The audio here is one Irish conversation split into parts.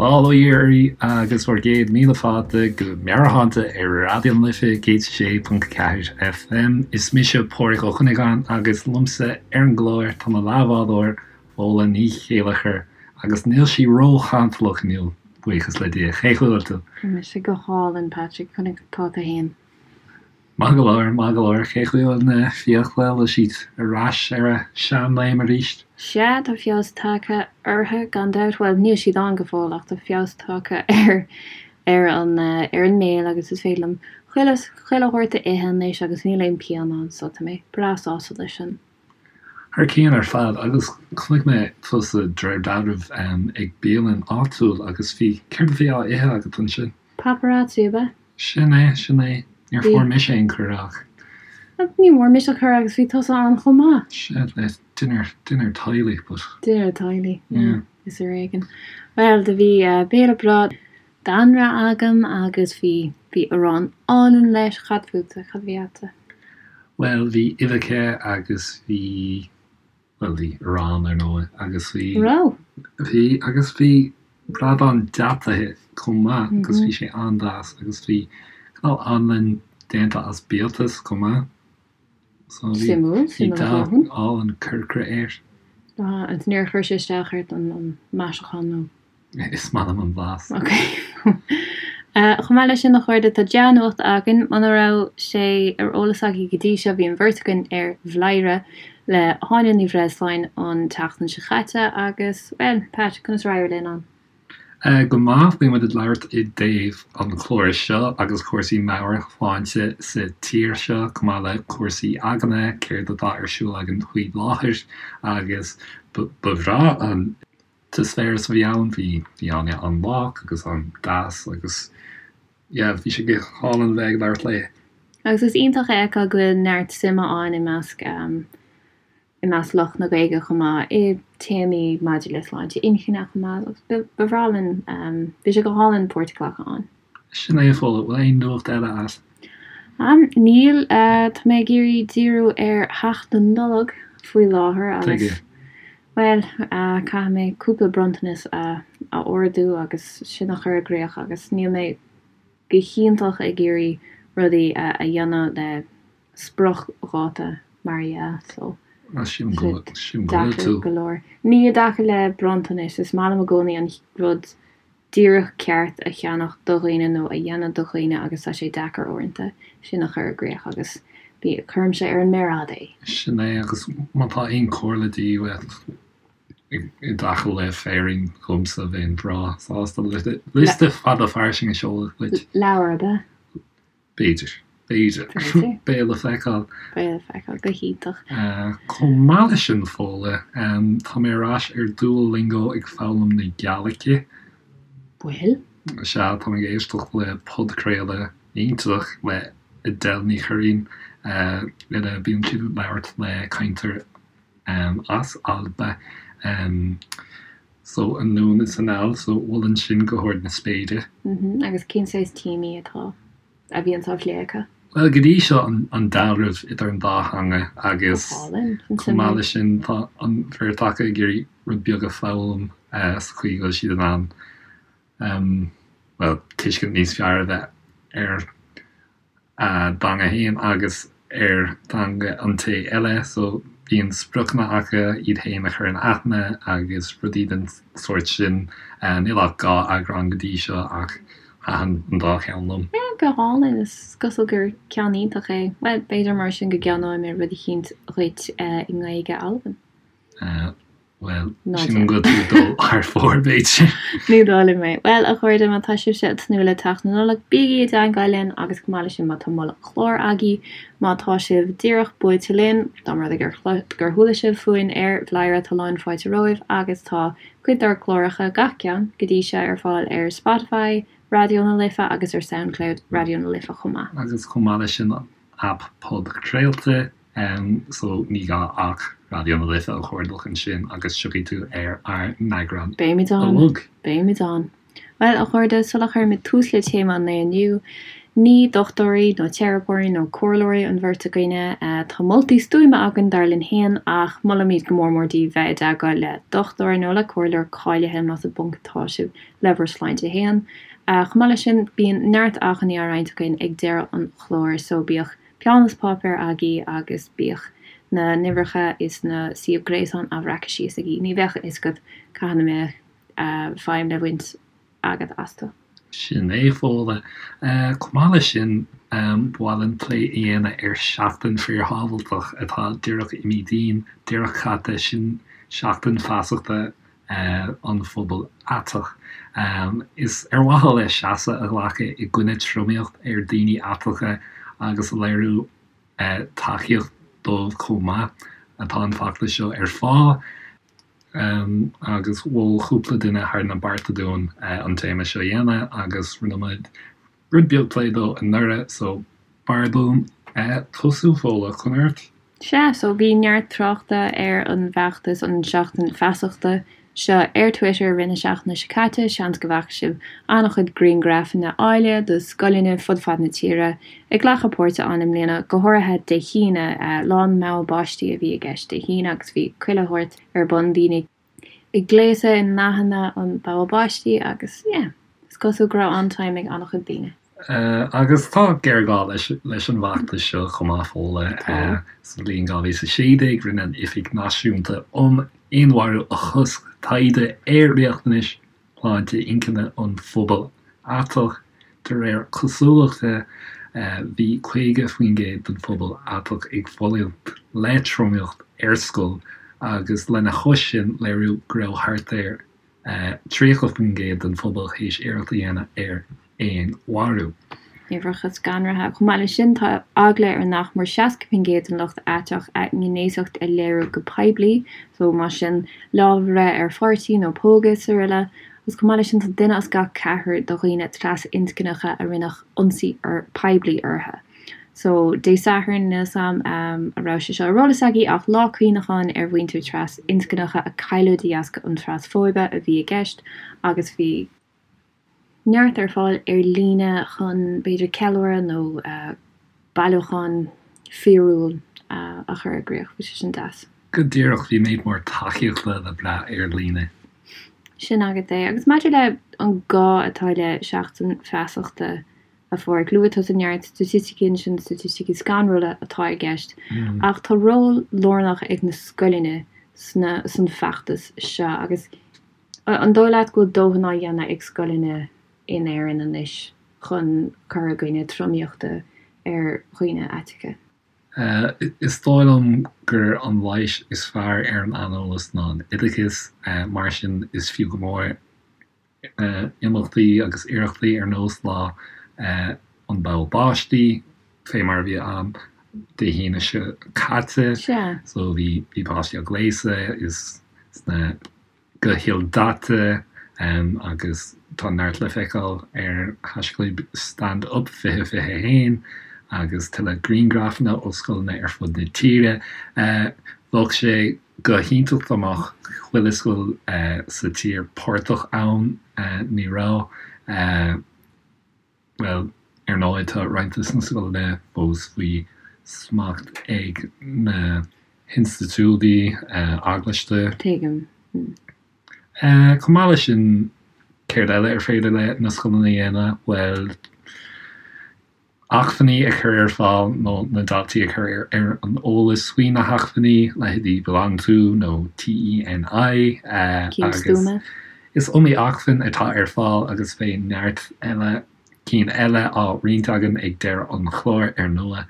Bail ó Dhia oraibh agus bhur gcéad míle fáilte go Meabhairshláinte ar Raidió na Life 106.4 FM. Is mise Pádraig Ó Cuinneagáin agus liomsa ar an gclár tá mo leathbhádóir Fódhla Ní Chéilleachair agus níl sí ró-chantalach inniu, buíochas le Dia. Cén chaoi a bhfuil tú? Tá mise go hálainn, Patrick. Conas tá tú fhéin? Maith go leor, maith go leor. Cén chaoi a bhfuil na fiacla, bhfuil siad ar ais ar a seanléim arís? Sea, tá feabhas tagtha orthu, gan dabht. Bhuel, níl siad ann go fóill ach tá feabhas tagtha ar ar an ar an mbéal agus is féidir liom chuile chuile shórt a ithe anois agus níl aon pian ann so tá mé breá sásta leis sin. Thar cionn ar fad agus chonaic mé tusa de réir dealraimh ag bialann áitiúil agus bhí, céard a bhí á ithe agat ansin? Paparazzi, ab ea? Sin é, sin é. Níor fuair mise aon cuireadh ach. Ní bhfuair mise cuireadh agus bhí tusa ann chomh maith. Sea, le dinnéar, dinnéar teaghlaigh but. Dinnéar teaghlaigh, yeah, is ar éigean. Bhuel, do bhí béile breá d'anraith agam agus bhí, bhí arán álainn leis. Cad fútsa, cad a bhí a'dsa? Bhuel, bhí uibheacha agus bhí. Bhuel, bhí arán, ar ndóigh, agus bhí. Raibh? Bhí, agus bhí bradán deataithe chomh maith agus bhí sé an-deas agus bhí cineál anlann déanta as biatas chomh maith. So bhí, Suimiúil, bhí suimiúil a dath dhóthain. álainn corcra air. Ah, agus níor chuir sé isteach ort an, an maisiúchán nó? Is maith liom an blas. Ok. Chomh maith leis sin, a chairde, tá dea-nuacht againn. Muna raibh sé ar eolas agaibh go dtí seo, bhí an bheirt againn ar Bhladhaire le hÁine Ní Bhreisleáin an tseachtain seo chaite agus, bhuel, Pat, conas ar éirigh linn ann? Go maith. Bhí muid ag labhairt i dtaobh an chláir seo agus cúrsaí meabhairshláinte sa tír seo, chomh maith le cúrsaí againne, céard atá ar siúl againn faoi láthair agus ba bhreá an t-eispéireas a bhí ann, bhí bhí Áine an-lách agus an-deas agus yeah bhí sé go hálainn a bheith ag labhairt léi. Agus is iontach a fheiceáil go bhfuil neart suime ann i measc i measc lucht na Gaeilge chomh maith i téamaí maidir le sláinte inchinne chomh maith agus ba ba bhreá linn bhí sé go hálainn páirt a ghlacadh ann. Sin é a Fódhla, bhfuil aon nuacht eile a't? Níl, tá mé ag iarraidh díriú ar theacht na Nollag faoi láthair agus Tuige? bhuel, caithfidh mé cúpla bronntanas a ordú agus sin a chur i gcríoch agus níl mé go hiontach ag iarraidh rudaí a dhéanamh le spriocdháta mar a dhea so Sílim go bhfuil deacair tú. go leor. Ní i dtaca le bronntanais, is maith liom i gcónaí an rud díreach ceart a cheannach do dhaoine nó a dhéanamh do dhaoine agus tá sé deacair uaireanta sin a chur i gcríoch agus bí, cuirimse ar an méar fhada é. Sin é agus má tá aon chomhairle de dhíth uait i dtaca le féirín dhomsa bheinn breá sásta liosta fada fairsing a sheoladh duit. Leabhar ab ea? B'fhéidir. B'fhéidir. B'fhéidir. Beidh le feiceáil. Beidh le feiceáil. Go hiontach. Chomh maith leis sin, Fódhla, tá mé ar ais ar Duolingo ag foghlaim na Gaeilge. Bhfuil? Sea, tá mé ag éisteacht le podchraoladh iontach le Edel Ní Churraoin ina bíonn siad ag labhairt le cainteoir as Alba. So anonn is anall, so mholfainn sin go hard na spéire. Agus cén saghas téamaí atá, a bhíonns á phlé acu? Bhuel, go dtí seo an dealramh idir an dá theanga agus Go hálainn, sin chomh maith suimiúil. leis sin tá an bheirt acu ag iarraidh rud beag a foghlaim sa chaoi go bhfuil siad in ann, bhuel, tuiscint níos fearr a bheith ar a dteanga féin agus ar theanga an té eile so bíonn spriocanna acu iad féin a chur in aithne agus rudaí den sórt sin. Níl ach 2 eagrán go dtí seo ach thaitin an dá cheann liom. Yeah, go hálainn, is cosúil gur ceann iontach é. Bhuel, b'fhéidir mar sin go gceannóidh mé rud eicínt dhuit i nGaeilge Alban. Bhuel, sílim go bhfuil tú ag dul thar fóir, b'fhéidir. Ní dóigh liom é. Bhuel, a chairde, má tá sibhse ag tnúth le teacht na Nollag, bígí i dteagmháil linn agus chomh maith leis sin má tá moladh cláir agaibh, má tá sibh díreach buailte linn, dá mba rud é gur gur chuala sibh fúinn ar Bhladhaire, tá lán fáilte romhaibh agus tá cuid dár gcláracha, gach ceann go dtí seo, ar fáil ar Spotify, Raidió na Life agus ar Soundcloud Raidió na Life chomh maith. Agus chomh maith leis sin an aip podchraolta. So ní gá ach Raidió na Life a chuardach ansin agus tiocfaidh tú ar ár n-eagrán Beimid ann. uilig. Beimid ann. Bhuel, a chairde, sula chuirimid tús le téama an lae inniu, Ní dochtúirí nó teiripeoirí nó comhairleoirí an bheirt againne. Tá moltaí stuama againn dar linn féin ach molaimid go mór mór daoibh bheith i dteagmháil le dochtúir nó le comhairleoir cáilithe más i bponc atá sibh le bhur sláinte féin. Chomh maith leis sin, bíonn neart acmhainní á roinnt againn ag deireadh an chláir so bíodh peann is páipéar agaibh agus bíodh na n-uimhreacha is na suíomh gréasáin á bhreacadh síos agaibh. Ní bheadh a fhios agat cathain a mbeadh feidhm le baint agat astu. Sin é, Fódhla. Chomh maith leis sin, ba mhaith linn plé a dhéanamh ar Seachtain Fíorshábhailteach atá díreach imithe dínn, díreach caite, sin seachtain feasachta an phobail aiteach. Is ar mhaithe le seasamh a ghlacadh i gcoinne tromaíocht ar daoine aiteacha agus a léiriú tacaíocht dóibh chomh maith atá an feachtas seo ar fáil. Agus mhol cúpla duine thar na bearta dúinn an téama seo a dhéanamh agus rinne muid rud beag plé dó anuraidh so b'fhearr dúinn tosú, Fódhla, conas ort? Sea, so bhí neart tráchta ar an bhfeachtas, an Seachtain Feasachta seo ar Twitter i rith na seachtaine seo caite, seans go bhfaca sibh an-chuid grianghrafanna áille de scoileanna fud fad na tíre ag glacadh páirte ann i mbliana, go háirithe Dé hAoine, Lá an Bhogha Báistí a bhí i gceist Dé hAoine agus bhí chuile shórt ar bun, daoine ag gléasadh i ndathanna an bhogha báistí agus yeah, is cosúil go raibh an-time ag an-chuid daoine. Agus tá géarghá leis leis an bhfeachtas seo chomh maith, Fódhla. Sa bhliain 2016 rinne an Oifig Náisiúnta um Fhéinmharú a Chosc taighde ar riachtanais shláinte inchinne an phobail aiteach. De réir cosúlachta, bhí 50% den phobal aiteach ag fulaingt le tromaíocht ar scoil agus lena chois sin léiríodh go raibh thart ar 30% den phobal théis iarracht a dhéanamh ar fhéinmharú. Uimhreacha scanraithe. Chomh maith leis sin, tá eagla ar nach mór 60% den lucht aiteach a ngnéasacht a léiriú go poiblí, so más sin lámh a bhreith ar pháirtí nó pógadh is araile. Agus chomh maith leis sin, tá duine as gach ceathrar de dhaoine trasinscneacha a rinneadh ionsaí poiblí orthu. So, Dé Sathairn, níl 's a'm an raibh sé seo ar eolas agaibh ach lá cuimhneacháin ar mhuintir trasinscneacha a cailleadh de dheasca an trasfóibe a bhí i gceist agus bhí neart ar fáil ar líne chun b'fhéidir ceiliúradh nó bailiúchán fíorúil a chur i gcrích. Bhí sé sin deas. Go díreach, bhí méid mór tacaíochta le brath ar líne. Sin agat é. Agus maidir le an gá atá le Seachtain Feasachta a Phádraig, luaigh tusa neart staitisticí ansin, staitisticí scanrúla atá i gceist, ach tá ról lárnach ag na scoileanna sna, san feachtas seo agus An dóigh leat go bhfuil dóthain á dhéanamh ag scoileanna in Éirinn anois chun cur i gcoinne tromaíochta ar dhaoine aiteacha? Is dóigh liom gur an leigheas is fearr ar an aineolas ná an oideachas. Mar sin, is fiú go mór imeachtaí agus iarrachtaí ar nós Lá an Bhogha Báistí, fé mar a bhí ann Dé hAoine seo caite. So bhí páistí á gléasadh is sna go hildaite agus tá neart le feiceáil ar haischlib StandUp 2021 agus tuilleadh grianghrafanna ó scoileanna ar fud na tíre. Bheadh sé go hiontach dá mbeadh chuile scoil sa tír páirteach ann. Ní raibh. Bhuel, ar ndóigh, tá roinnt de na scoileanna fós faoi smacht ag na hinstitiúidí eaglaiste. Tuigim. Chomh maith leis sin, céard eile ar féidir le na scoileanna a dhéanamh? Bhuel, acmhainní a chur ar fáil nó na daltaí a chur ar an eolas faoi na hacmhainní, leithéidí BeLonG To nó TENI, Cinn agus stuama. Is iomaí acmhainn atá ar fáil agus beidh neart eile cinn eile á roinnt againn ag deireadh an chláir, ar ndóigh.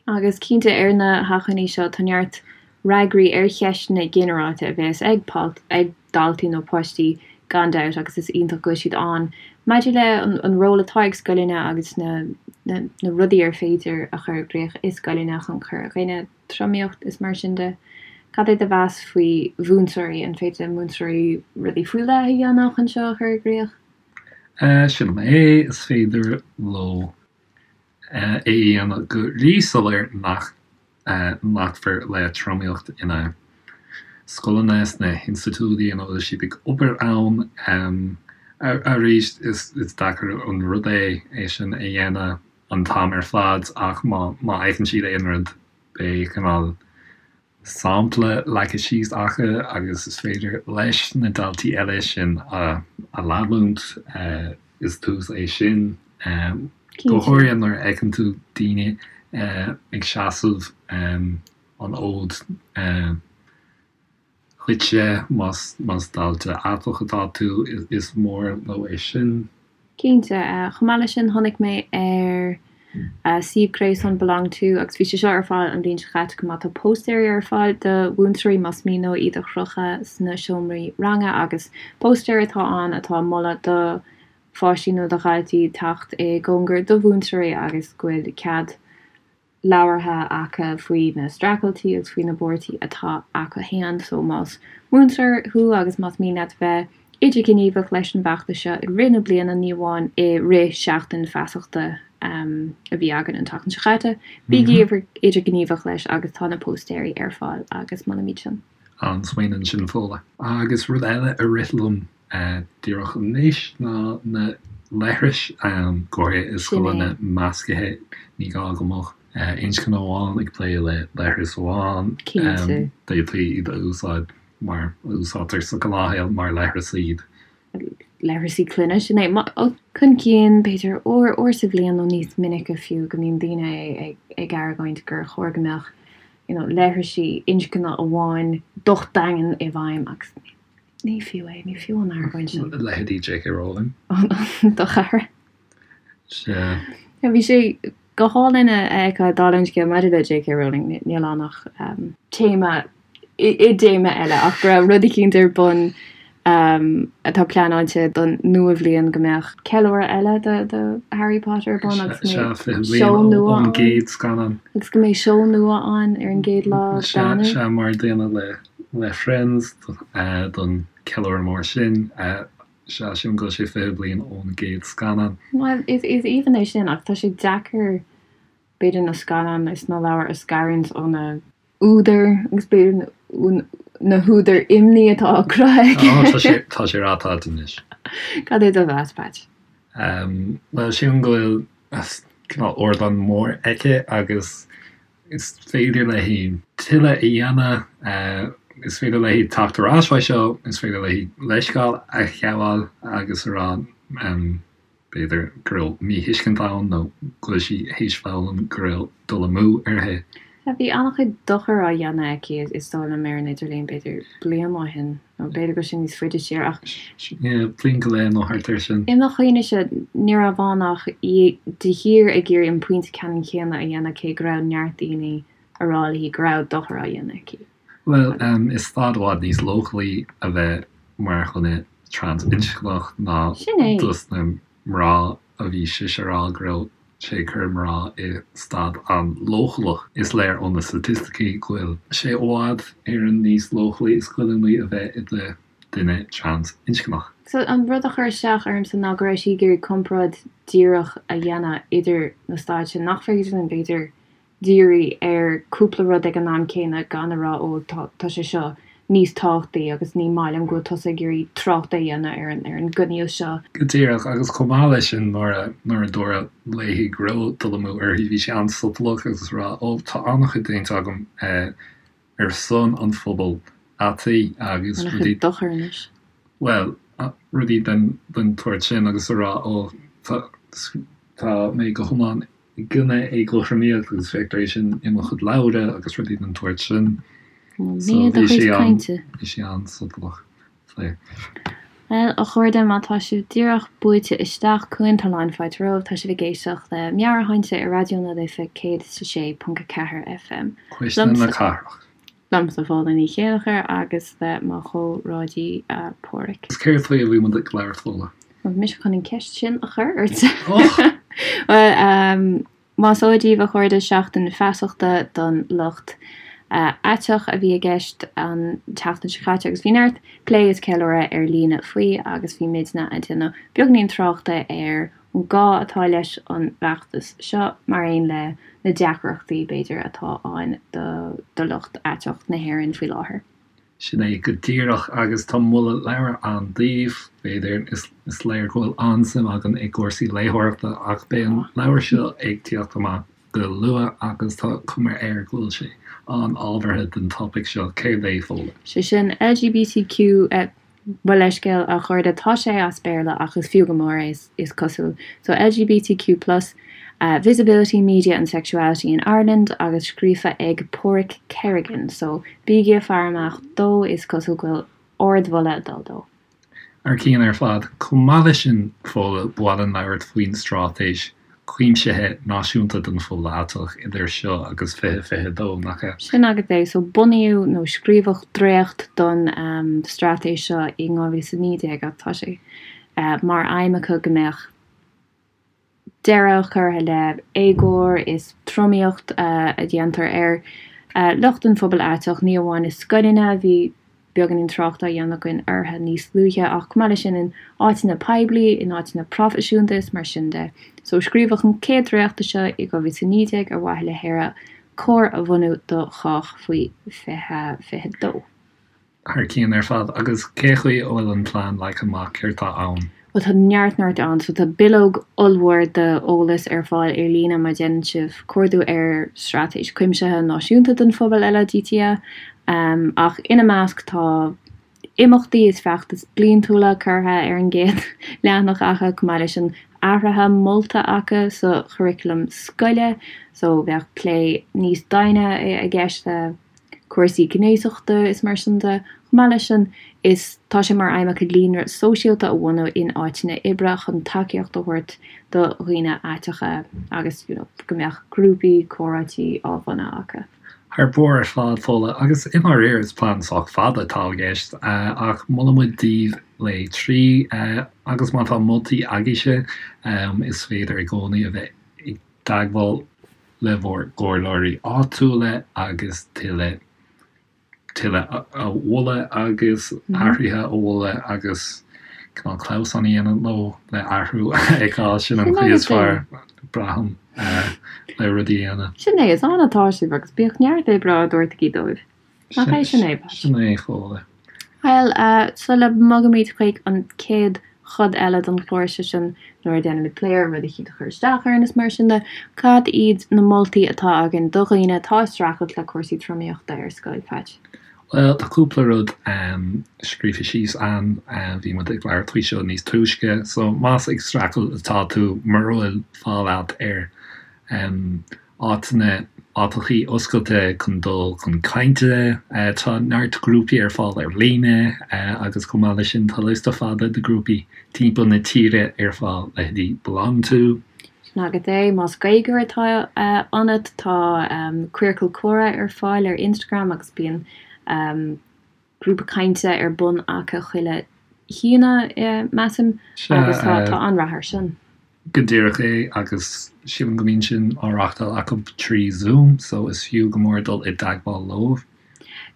Agus cinnte, ar na hacmhainní seo tá neart fhreagraí ar cheisteanna ginearálta a bheas ag ag daltaí nó páistí gan dabht agus is iontach go bhfuil siad ann. Maidir le an ról atá ag scoileanna agus na na rudaí ar féidir a chur i gcrích i scoileanna chun cur i gcoinne tromaíocht is mar sin de. Cad é do mheas faoi mhúinteoirí? An féidir le múinteoirí rudaí faoi leith a dhéanamh chun seo a chur i gcrích? Sílim é, is féidir leo é a dhéanamh go ríshoiléir nach nglacfar le tromaíocht ina scoileanna, sna hinstitiúidí ina bhfuil siad ag obair ann. Arís, is deacair an rud é é sin a dhéanamh an t-am ar fad ach má fheiceann siad aon rud, beidh cineál sampla leagtha síos acu agus is féidir leis na daltaí eile sin a leanúint. Is tús é sin, go háirithe nuair a fheiceann tú daoine ag seasamh an fhóid dhuitse, más dalta aiteach atá tú, is mór leo é sin. Cinnte. Chomh maith leis sin, chonaic mé ar suíomh gréasáin Belong To, agus bhí sé seo ar fáil an bhliain seo chaite chomh maith, tá póstaerí ar fáil do mhúinteoirí más mian leo iad a chrochadh sna seomraí ranga agus póstaer atá ann atá ag moladh do pháistí nó do dhaltaí teacht i gcóngar do mhúinteoirí agus go bhfuil cead labhartha acu faoi na streachailtí agus faoi na buarthaí atá acu fhéin. So más múinteoir thú agus más mian leat bheith idirghníomhach leis an bhfeachtas seo i rith na bliana, ní amháin i rith seachtain feasachta a bhí againn an tseachtain seo chaite, bígí idirghníomhach leis agus tá na póstaeirí ar fáil agus molaimid sin. An-smaoineamh ansin Fódhla. Agus rud eile a rith liom díreach anois ná na leithris, go háirithe i scoileanna meascaithe, ní gá go mbeadh inscne amháin ag plé le leithreas amháin, d'fhéadfaí iad a úsáid mar a úsáidtear sa ghnáthshaol mar leithreas iad. Leithreasaí clainne, sin é. Chun cinn, b'fhéidir uair, uair sa bhliain nó níos minice fiú, go mbíonn daoine ag argóint gur chóir go mbeadh you know leithrisí inscne amháin docht daingean i bhfeidhm agus ní fiú é, ní fiú an argóint sin. Leithéidí J.K. Rowling. Do chara. Sea. Bhí sé go hálainn a fheiceáil dála an scéil maidir le J.K. Rowling, níl ann ach téama i dtéama eile ach go raibh rud eicínt ar bun atá pleanáilte don nua-bhliain go mbeadh ceiliúradh eile do Harry Potter ar bun agus go mbeidh seó nua ann. Agus go mbeidh seó nua ann ar an gcéad lá d'Eanáir. Sea, mar a déanadh le Friends don cheiliúradh mór sin. Sea, sílim go bhfuil sé 20 bliain ón gcéad scannán. Bhuel, is aoibhinn é sin ach tá sé deacair b'fhéidir na scannáin is na leabhair a scarúint ó na údair agus b'fhéidir na húdair imní atá á cruthaigh aige. Tá sé tá sé ráite anois. Cad é do mheas, Patch? Bhuel, sílim go bhfuil cineál ardán mór aici agus is féidir léi tuilleadh a dhéanamh, is féidir léi teacht ar ais faoi seo, is féidir léi leithscéal a ghabháil agus a rá b'fhéidir go raibh míthuiscint ann nó go bhfuil sí théis foghlaim go raibh dul amú uirthi. Bhí an-chuid dochair á dhéanamh aici, is dóigh liom, ar an idirlíon, b'fhéidir bliain ó shin, nó b'fhéidir go bhfuil sé níos faide siar, ach. Yeah, bliain go leith nó thart air sin. I mo chuimhnese, ní raibh ann ach í de shíor ag iarraidh an pointe ceannann céanna a dhéanamh cé go raibh neart daoine a rá léi go raibh dochar á dhéanamh aici. Bhuel, is staid i bhfad níos leochailí a bheith mar dhuine trans-inscneach ná dos na mná a bhí sise a rá go raibh sé ag cur mná i staid an-leochaileach. Is léir ó na staitisticí go bhfuil sé i bhfad Éireann níos leochailí is goilliúnaí a bheith i do dhuine trans-inscneach. So an rud a chuir isteach ormsa ná go raibh sí ag iarraidh comparáid díreach a dhéanamh idir na staid sin, nach féidir linn b'fhéidir díriú ar cúpla rud ag an am céanna gan a rá ó tá tá sé seo níos tábhachtaí agus ní maith liom go bhfuil tusa ag iarraidh trácht a dhéanamh ar an ar an gcoinníoll seo. Go díreach, agus chomh maith leis sin nuair a nuair a dúradh léi go raibh dul amú uirthi bhí sí an-sotalach agus ag rá ó tá an-chuid déanta agam ar son an phobail aitaigh agus rudaí An-chuid dochair anois. Bhuel, rudaí den den tsórt sin agus a rá ó tá tá mé go hiomlán i gcoinne éagothromaíocht agus feictear é sin i mo chuid leabhra agus rudaí den tsórt sin. So bhí sé an, bhí sé an-sotalach faoi. Bhuel, a chairde, má tá sibh díreach buailte isteach chugainn, tá lán fáilte romhaibh. Tá sibh ag éisteacht le Meabhairshláinte ar Raidió na Life 106.4 FM. Cuisle na Cathrach. Liomsa Fódhla Ní Chéilleachair agus le mo chomhráidí Páraic. Is céard faoi a bhí muid ag labhairt, Fódhla? Bhuel, bhí mise chun an ceist sin a chur ort. Bhuel, más eol daoibh, a chairde, Seachtain Feasachta don Lucht Aiteach a bhí i gceist an tseachtain seo caite agus bhí neart plé is ceiliúradh ar líne faoi agus bhí muidne ag déanamh beagainín tráchta ar an gá atá leis an bhfeachtas seo, mar aon le na deacrachtaí, b'fhéidir, atá ann do lucht aiteach na hÉireann faoi láthair. Sin é go díreach, agus tá moladh leabhair ann daoibh, b'fhéidir. Is léir go bhfuil an-suim againn i gcúrsaí léitheoireachta, ach beidh an leabhar seo ag tíocht amach go luath agus tá cuma air go bhfuil sé an-ábhartha don topaic seo. Céard é, Fódhla? Sé sin, LGBTQ, Mo leithscéal, a chairde, tá sé as Béarla ach is fiú go mór é, is cosúil. So, LGBTQ plus, Visibility, Media and Sexuality in Ireland agus scríofa ag Páraic Kerrigan. So, bígí ag faire amach dó, is cosúil go bhfuil ardmholadh ag dul dó. Thar cionn ar fad. Chomh maith leis sin, Fódhla, ba mhaith linn labhairt faoin straitéis chuimsithe náisiúnta don phobal aiteach idir seo agus 2022, nach ea? Sin agat é. So, bunaíodh nó scríobhadh dréacht don straitéis seo i 2019 ach tá sé mar aidhm acu go mbeadh deireadh curtha le éagóir is tromaíocht a dhéantar ar lucht an phobail aiteach, ní amháin i scoileanna, bhí beagáinín trácht á dhéanamh againn orthu níos luaithe, ach chomh maith leis sin in áiteanna poiblí, in áiteanna proifisiúnta is mar sin de. So scríobhadh an chéad dréacht de seo i 2019 ar mhaithe le hÉire chóir a bhunú do chách faoi 2022. Thar cionn ar fad. Agus cé chaoi a bhfuil an plean leagtha amach, céard tá ann? Bhuel tá neart neart ann. So tá bileog ollmhór d'eolas ar fáil ar líne má dhéanann sibh cuardú ar Straitéis Cuimsithe Náisiúnta don Phobal LADTA. Ach ina measc tá imeachtaí is feachtais bliantúla curtha ar an gcéad leathanach acu, chomh maith leis an athruithe molta acu sa churaclam scoile. So bheadh plé níos doimhne i gceist le cúrsaí gnéasachta is mar sin de. Chomh maith leis sin, is tá sé mar aidhm acu líonra sóisialta a bhunú in áiteanna oibre chun tacaíocht a thabhairt do dhaoine aiteacha agus you know go mbeadh grúpaí comhráití á bhunú acu. Thar barr ar fad, Fódhla, agus i ndáiríre is plean sách fada atá i gceist, ach molann muid daoibh léigh trí, agus má tá moltaí agaibhse, is féidir i gcónaí a bheith i dteagmháil le bhur gcomhairleoirí áitiúla agus tuilleadh tuilleadh a mholadh agus athruithe a mholadh agus cineál clamhsán a dhéanamh leo le athrú a fheiceáil. Sin an chaoi is fearr, braithim, le rudaí a dhéanamh. Sin é, is ann atá sibh agus bíodh neart oibre á dtabhairt agaibh dóibh. Nach é sin é, Pat? Sin é, Fódhla. Bhuel, sula mbogaimid chuig an chéad chuid eile den chlár, sé sin nuair a déanaimid plé ar rud eicínt a chuir isteach orainn is mar sin de, cad iad na moltaí atá againn do dhaoine atá ag streachailt le cúrsaí tromaíochta ar scoil, Patch? Bhuel, tá cúpla rud scríofa síos ann, bhí muid ag labhairt faoi seo níos túisce, so más ag streachailt atá tú, mura bhfuil fáil agat ar áiteanna, áiteachaí oscailte chun dul chun cainte. Tá neart grúpaí ar fáil ar líne agus chomh maith leis sin tá liosta fada de ghrúpaí timpeall na tíre ar fáil, leithéidí BelongTo. Sin agat é. Más Gaeilgeoir atá ionat, tá Queercal Comhrá ar fáil ar Instagram agus bíonn grúpa cainte ar bun acu chuile hAoine, measaim, agus tá an-rath air sin. Go díreach é, agus sílim go mbíonn sin á reachtáil acu trí Zoom, so is fiú go mór dul i dteagmháil leo.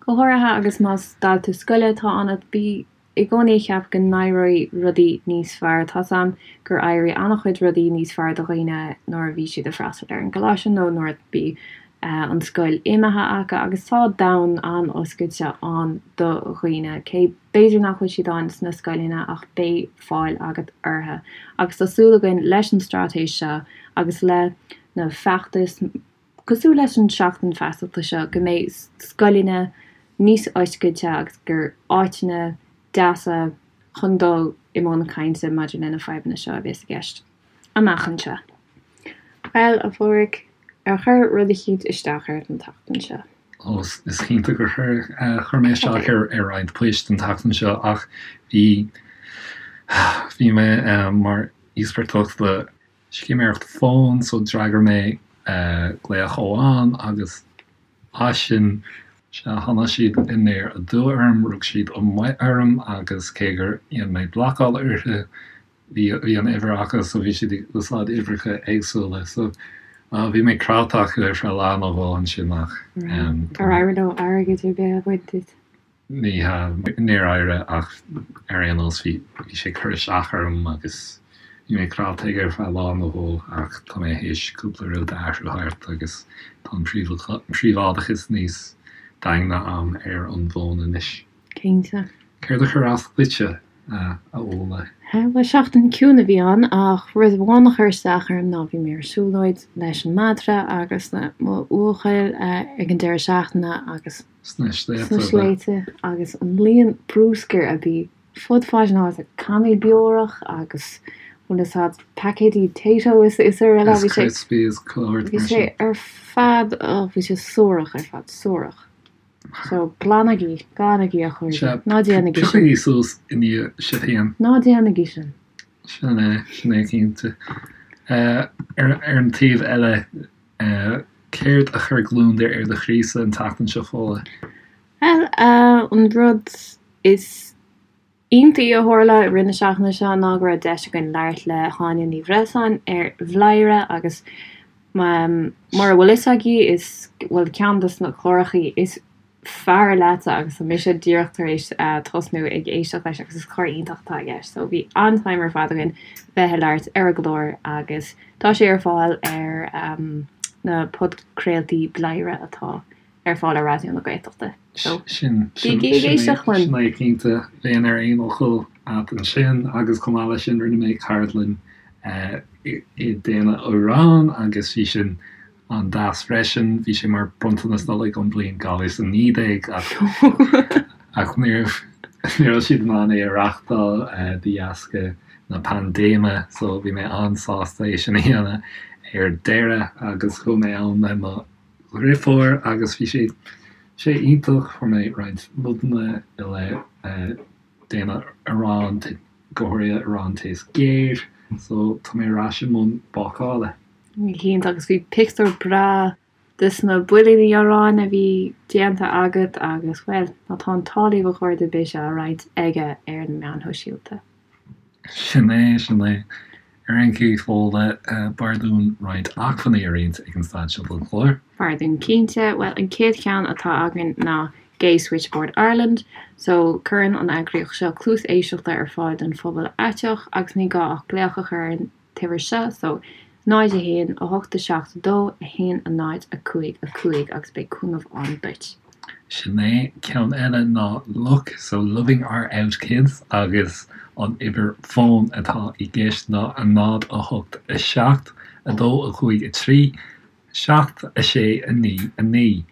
Go háirithe agus más dalta scoile atá ionat, bí i gcónaí ag ceapadh go n-éireoidh rudaí níos fearr. Tá's a'm gur éirigh an-chuid rudaí níos fearr do dhaoine nuair a bhí siad ag freastal ar an gcoláiste nó nuair a bhí an scoil imithe acu agus tá domhan an-oscailte ann do dhaoine, cé b'fhéidir nach bhfuil siad ann sna scoileanna ach beidh fáil agat orthu. Agus tá súil againn leis an straitéis seo agus le na feachtais cosúil leis an Seachtain Feasachta seo go mbeidh scoileanna níos oscailte agus gur áiteanna deasa chun dul i mbun cainte maidir le na fadhbanna seo a bheas i gceist. amach anseo. Bhuel, a Pháraic, ar chuir rud eicínt isteach ort an tseachtain seo? Ó, is cinnte gur chuir. Chuir mé isteach ar roinnt poist an tseachtain seo ach bhí, bhí mé mar íospartach le scéiméireacht fóin so d'fhreagair mé glaoch amháin agus as sin, sea, tháinig siad aniar aduaidh orm, rug siad amuigh orm agus cé gur dhein mé blocáil orthu, bhí an uimhir acu so bhí siad ag úsáid uimhreacha éagsúla so bhí mé craiceáilte acu ar feadh lá nó dhó ansin ach Ar éirigh leo airgead ar bith a bhaint díot? Ní hea, níor éirigh ach ar aon nós bhí bhí sé ag cur isteach orm agus bhí mé craiceáilte aige ar feadh lá nó dhó ach tá mé théis cúpla rud a athrú thart agus tá an príobháideachas níos daingne a'm ar an bhfón anois. Cinnte. Céard a chuir as duitse, a Fhódhla? Bhuel, seachtain ciúin a bhí ann ach rud amháin a chuir isteach orm ná bhí mé ar siúlóid leis an madra agus le mo bhuachaill ag an deireadh seachtaine agus Sna sna sléibhte agus an líon brúscair a bhí fud fad na háite, cannaí beorach agus bhfuil fhios a'd, paicéidí Tayto is araile. Is Crispies, clár Bhí sé ar fad, oh, bhí sé suarach ar fad, suarach. So, glanaigí, glanaigí a chairde. Ná déanaigí sin. Piocaigí suas i ndiaidh sibh féin. Ná déanaigí sin. Sin é, sin é cinnte. Ar an taobh eile, céard a chuir gliondar ar do chroísa an tseachtain seo, Fódhla? Bhuel, an rud is iontaí a tharla i rith na seachtaine seo ná go raibh deis againn labhairt le hÁine Ní Bhreisleáin ar Bhladhaire agus mura bhfuil fhios agaibh is, bhuel, ceann de na clárachaí is fearr leatsa agus tá mise díreach tar éis tosnú ag éisteacht leis agus is clár iontach atá i gceist. So bhí an-time ar fad againn bheith ag labhairt ar an gclár agus tá sé ar fáil ar na podchraoltaí Bladhaire atá ar fáil ar Raidió na Gaeltachta. So, Sin, sin, bígí ag sin é, éisteacht linn! sin é cinnte. Bheinn ar aon fhocal a't ansin agus chomh maith leis sin rinne mé ceardlann i déanamh arán agus bhí sin an-deas freisin. Bhí sé mar bronntanas Nollag ón bliain 2019 ach ach ní raibh ní raibh siad in ann é a reachtáil de dheasca na paindéime so bhí mé an-sásta é sin a dhéanamh ar deireadh agus chuaigh mé ann le mo dhriofúr agus bhí sé sé iontach, fuair mé roinnt nodanna i leith déanamh arán, go háirithe arán taos géar, so tá mé ar ais i mbun bácála. Cinnte, agus bhí pictiúr breá des na builíní aráin a bhí déanta agat agus, bhuel, má tá an t-ádh libh a chairde beidh sé á roinnt aige ar na meáin shóisialta. Sin é, sin é. Ar aon chaoi, Fódhla, b'fhearr dúinn roinnt acmhainní a roinnt ag an staid seo den chlár. B'fhearr dúinn cinnte. Bhuel, an chéad cheann atá againn ná Gay Switchboard Ireland. So, cuireann an eagraíocht seo cluas éisteachta ar fáil don phobal aiteach agus ní gá ach glaoch a chur ar an t-uimhir seo, so 0 1 8 7 2 1 0 5 5 agus beidh cúnamh ann duit. Sin é. Ceann eile ná LOOK, so Loving Our Out Kids agus an uimhir fóin atá i gceist ná 0 8 7 2 5 3 7 6 9 9.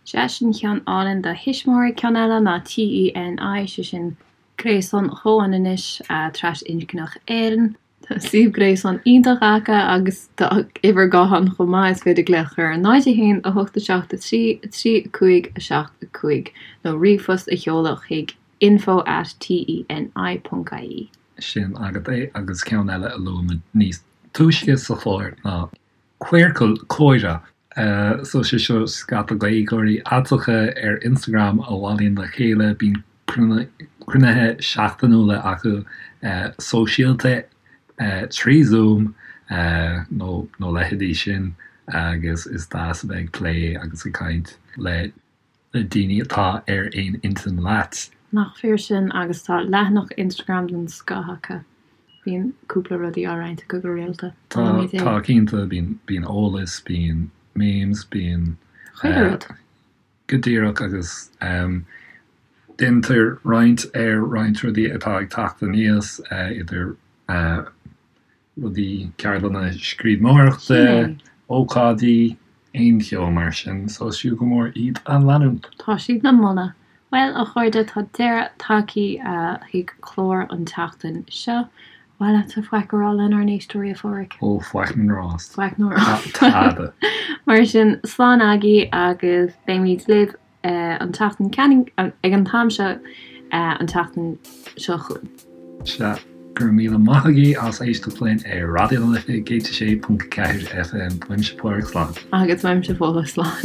Sea, sin ceann álainn do thuismitheoirí. Ceann eile ná TENI, sé sin Gréasán Chomhionannais Trasinscneach Éireann. Tá suíomh gréasáin iontach acu agus tá uimhir gutháin chomh maith, is féidir glaoch a chur ar 0 1 8 7 3 3 5 7 5 nó ríomhphost a sheoladh chuig info at TENI ponc ie. Sin agat é agus ceann eile a luaigh muid níos túisce sa chlár ná Queercal Comhrá. So sé seo scata Gaeilgeoirí aiteacha ar Instagram a bhailíonn le chéile, bíonn cruinnithe seachtainiúla acu sóisialta trí Zoom nó nó leithéidí sin agus is deas a bheith ag plé agus ag caint le le daoine atá ar aon intinn leat. Nach fíor sin agus tá leathanach Instagram den scoth acu. Bíonn cúpla rudaí á roinnt acu go rialta. Tá, tá cinnte, bíonn, bíonn eolas, bíonn memes, bíonn. Chuile rud. Go díreach agus déantar roinnt ar roinnt rudaí atá ag teacht aníos idir rudaí, ceardlanna scríbhneoireachta, ócáidí, aon cheo mar sin, so is fiú go mór iad a leanúint. Tá siad le moladh. Bhuel, a chairde, tá deireadh tagtha chuig clár an tseachtain seo. Ar mhaith leatsa faic a rá lenár n-éisteoirí, a Pháraic? Ó, faic na ngrást. Faic na ngrást. Tada. Mar sin, slán agaibh agus beimid libh an tseachtain ag an t-am seo an tseachtain seo chugainn. Sea, go raibh míle maith agaibh as éisteacht linn ar Raidió na Life 106.4 FM. Uaimse Páraic, slán. Agus uaimse Fódhla, slán.